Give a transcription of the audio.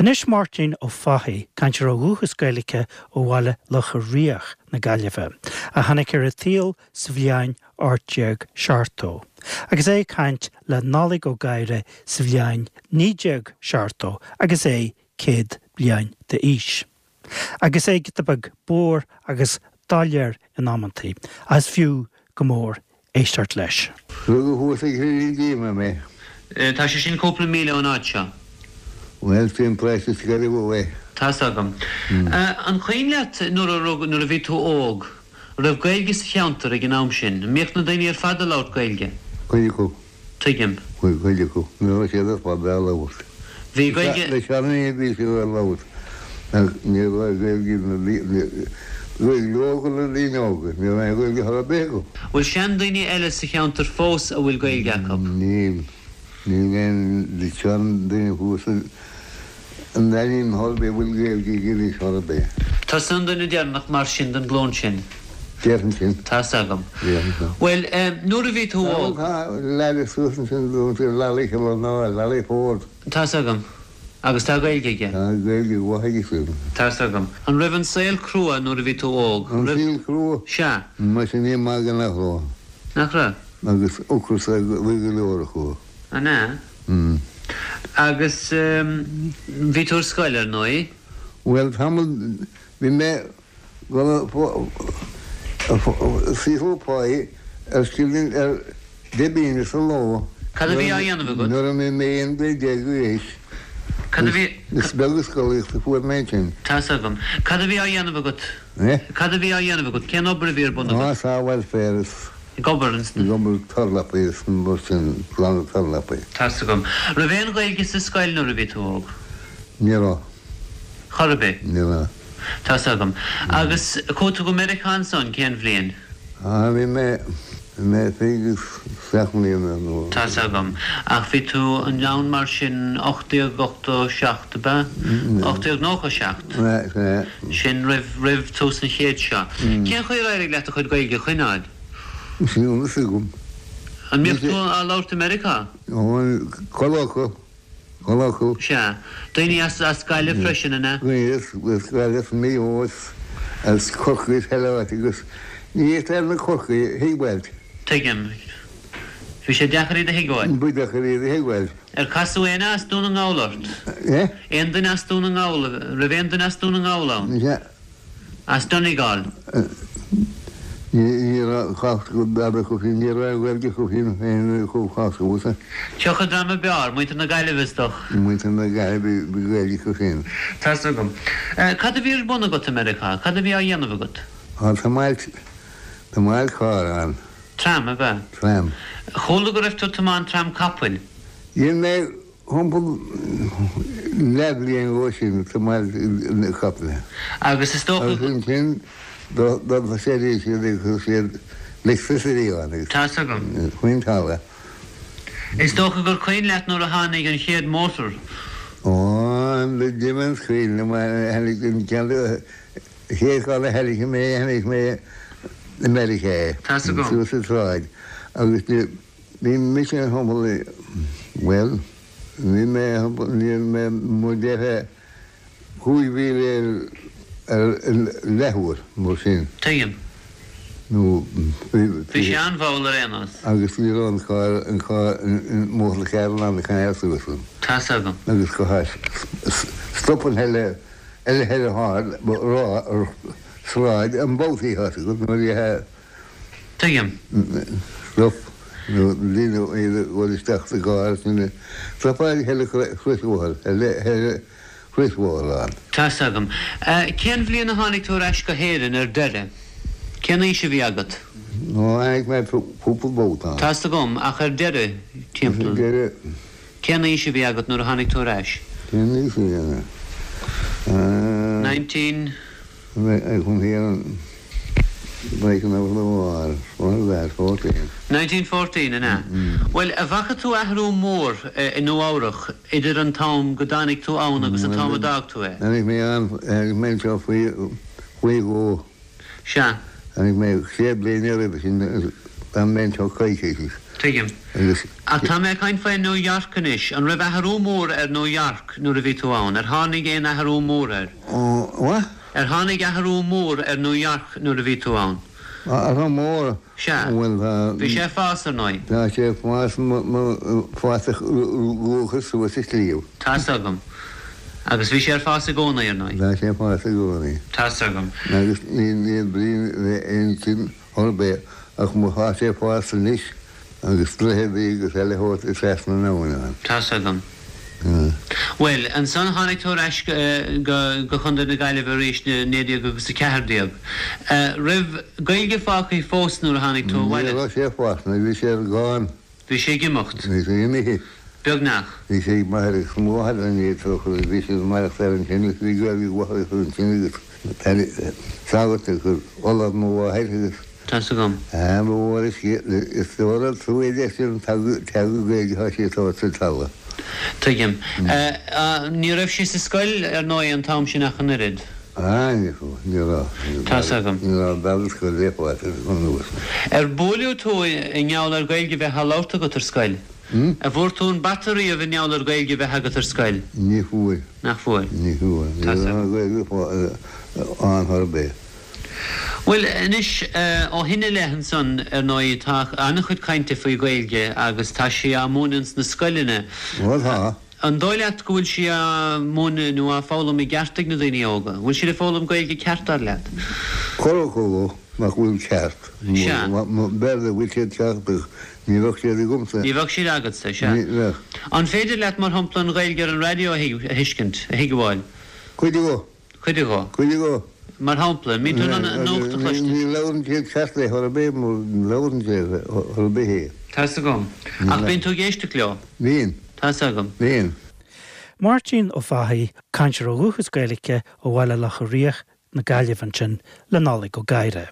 Anois Máirtín Ó Fathaigh, cainteoir ó dhúchas Gaeilge ó bhaile Locha Riach na Gaillimhe, a tháinig ar an tsaol sa bhliain 1870, agus é ag caint le Nollaig Ó Gadhra sa bhliain 1970 agus é 100 bliain d'aois. Agus é giota beag bodhar agus doiléir in amantaí, ach is fiú go mór éisteacht leis. Rugadh thuas ag Cillín Díoma mé. Tá sé sin cúpla míle ón áit seo. Bhuel, sin paróiste Sceilg Mhaigh. Tá's agam. An cuimhin leat nuair a rugadh, nuair a bhí tú óg, an raibh Gaeilge sa cheantar ag an am sin? An mbíodh na daoine ar fad ag labhairt Gaeilge? Cuid acu. Tuigim. Cuid acu. Ní raibh siad ar fad á labhairt. Bhí Gaeilge. Na seandaoine bhí siad á labhairt ach ní raibh Gaeilge na Gaeilge óga na daoine óga. Ní raibh aon Ghaeilge chor ar bith acu. Bhfuil seandaoine eile sa cheantar fós a bhfuil Gaeilge acu? Níl. Níl aon seandaoine thuas An Daingin chor ar bith a bhfuil Gaeilge aige anois chor ar bith. Tusa an duine deireanach mar sin den ghlúin sin. Déarfainn sin. Tá's agam. Déarfainn sin. Bhuel, nuair a bhí tú óg. Tá leaid suas ansin dúinn, Lally Kilonóir, Lally Ford. Tá's agam. Agus tá Gaeilge aige. Tá Gaeilge mhaith aige sin. Tá's agam. An raibh an saol crua nuair a bhí tú óg? An saol crua? Sea. Muise ní maith go nach raibh. Nach raibh? Agus ocras ar go leor acu. An ea? Agus bhí tú ar scoil, ar ndóigh? Bhuel, tamall, bhí mé ag saothrú páí ar scilling ar deich bpingine sa ló. Cad a bhí á dhéanamh agat? Nuair a bhí mé 11 bliain d'aois. Cad a bhí. Is beag an scolaíocht a fuair mé ansin. Tá's agam. Cad a bhí á dhéanamh agat? Eh? Cad a bhí á dhéanamh agat? Cén obair a bhí ar bun agat? Á, sábháil féir is. Ag obair ins na. Ag obair turlapaí is mar sin, glanadh turlapaí. Tá's agam. Raibh aon Ghaeilge sa scoil nuair a bhí tú óg? Ní raibh. Chor ar bith? Ní raibh. Tá's agam. Agus chuaigh tú go Meiriceá ansan, cén bhliain? Á, bhí mé, bhí mé 27 mbliana nó. Tá's agam. Ach bhí tú ann mar sin 1887, ab ea? 1897? Sea, sea. Sin roimh, roimh tús an chéid seo. Cén chaoi ar éirigh leat do chuid Gaeilge a choinneáil? Níl a fhios agam. An mbíodh tú á labhairt i Meiriceá? Ó, chuile acu, chuile acu. Sea. Daoine as, as Gaillimh freisin, an ea? Daoine as, as Gaillimh, as Maigh Eo, as, as Corcaigh, as chuile áit agus ní fhéadfá na Corcaigh a thuigbheáil. Tuigim. Bhí sé deacair iad a thuigbheáil. Ba deacair iad a thuigbheáil. Ar casadh éinne as Dún na nGall ort? Eh? Aon duine as Dún na nGall, raibh aon duine as Dún na nGall ann? Sea. As Donegal? Ní raibh cás go dada acu féin, ní raibh aon Ghaeilge acu féin féin chomh cás agamsa. Cé acu dream ab fhearr, muintir na Gaillimhe is dócha? Muintir na Gaillimhe, bhí Gaeilge acu féin. Tá's agam. Cad a bhí ar bun agat i Meiriceá? Cad a bhí á dhéanamh agat? Á, tiomáint, tiomáint carr ann. Tram, ab ea? Tram. Chuala go raibh tú ag tiomáint tram capaill. Dhein mé thimpeall leathbhliain dhó sin ag tiomáint na capaill. Agus is dócha. Agus ansin d'fhostaigh siad agus chuir siad electricity ann agus. Tá's agam. Faoin talamh. Is dócha gur cuimhin leat nuair a tháinig an chéad mótar. Ó, an devil's cuimhin liom, tháinig an ceann. Chéad charr a chonaic mé, chonaic mé i Meiriceá é, Tá's agam. suas an tsráid, agus bhí, bhí mise thimpeall, bhuel, bhí mé thimpeall, ní raibh mé mar déarfá 5 mhíle ar, ar leathuair, mar sin. Tuigim. Nó bhí, Bhí sé an-mhall ar aon nós. Agus ní raibh an carr, an carr, an motor car in ann a choinneáil suas ann. Tá's agam. Agus go stop an eile. Eile thoir ar sráid an babhtaí thart agat nuair a Tuigim. Stop nó daoine iad ag dul isteach sa gcarr sin stopáil cheithre chrosbhóthar cheithre chrosbhóthar ann. Tá's agam. Cén bhliain a tháinig tú ar ais go hÉirinn ar deireadh? Cén aois a bhí agat? Ó tháinig mé cúpla babhta ann. Tá's agam, ach ar deireadh, timpeall. Ar deireadh. Cén aois a bhí agat nuair a tháinig tú ar ais? Cén aois a bhí agam? 19. 1914, an ea? Bhuel, an bhfaca tú athrú mór i Nua Eabhrach idir an t-am go dtáinig tú ann agus an t-am a d'fhág tú é? Tháinig mé ann, tháinig mé anseo faoi faoi dhó. Sea. Tháinig mé sé bliana roimhe sin, d'fhan mé anseo coicís. Tuigim. Agus. Ach tá mé ag caint faoi New York anois. An raibh athrú mór ar New York nuair a bhí tú ann? Ar tháinig aon athrú mór air? What? Ar tháinig athrú mór ar New York nuair a bhí tú ann? Athrú mór? Sea. Bhuel, tá. Bhí sé ag fás, ar ndóigh. Tá sé ag fás, fás a luachas suas an sliabh. Tá's agam. Agus bhí sé ar fás i gcónaí, ar ndóigh. Tá sé ag fás i gcónaí. Tá's agam. Agus níl brí le aon tsuim ar bith ach má tá sé ag fás anois agus droicheadaí agus eile a thabhairt trasna na habhann ann. Tá's agam. Bhuel, ansan tháinig tú ar ais go go Chontae na Gaillimhe arís i 19 agus 14. Raibh Gaeilge fágtha fós nuair a tháinig tú abhaile? Ní raibh sé fágtha, bhí sé gone. Bhí sé ag imeacht. Bhí sé imithe. Beagnach. Bhí sé ag m'athair agus mo mháthair an oiread so agus bhí siad ag maireachtáil ansin agus bhí Gaeilge mhaith acu ansin agus sagart agus ollamh mo mháthair agus. Tá's agam. Ba mhór is is dóigh an trua é sin an teanga Gaeilge atá sí ag tabhairt sa talamh. Tuigim. Ní raibh sí sa scoil ar ndóigh an t-am sin ach an oiread. Ah, ní raibh, ní raibh. Tá's agam. Ní raibh bealach scoile le fáil anuas. Ar buaileadh tú i ngeall ar Gaeilge bheith á labhairt agat ar scoil? An bhfuair tú an bata riamh i ngeall ar Gaeilge bheith agat ar scoil? Ní fuair. Nach fuair? Ní fuair. Ní raibh Gaeilge ann chor ar bith. Bhuel, anois, ó shin i leith ansan, ar ndóigh, tá an-chuid cainte faoi Ghaeilge agus tá sí á múineadh ins na scoileanna. Bhuel, tá. An dóigh leat go bhfuil sí á múineadh nó á foghlaim i gceart ag na daoine óga? An bhfuil siad ag foghlaim Gaeilge ceart, dar leat? Corr acu nach bhfuil ceart. Sea. B'fhéidir go bhfuil siad ceart ach ní bheadh siad agamsa. Ní bheadh siad agatsa, sea. Ní bheadh. An féidir leat, mar shampla, an Ghaeilge ar an raidió a thuiscint, a thuigbheáil? Cuid de. Cuid de. Cuid de. Mar shampla, an mbíonn tú in ann an nuacht a chloistin? Ní labhrann siad ceart é chor ar bith, ní labhrann siad chor ar bith é. Tá's agam. Ach bíonn tú ag éisteacht leo? Bíonn. Tá's agam. Bíonn. Máirtín Ó Fathaigh, cainteoir ó dhúchas Gaeilge ó Bhaile Locha Riach na Gaillimhe ansin le Nollaig Ó Gadhra.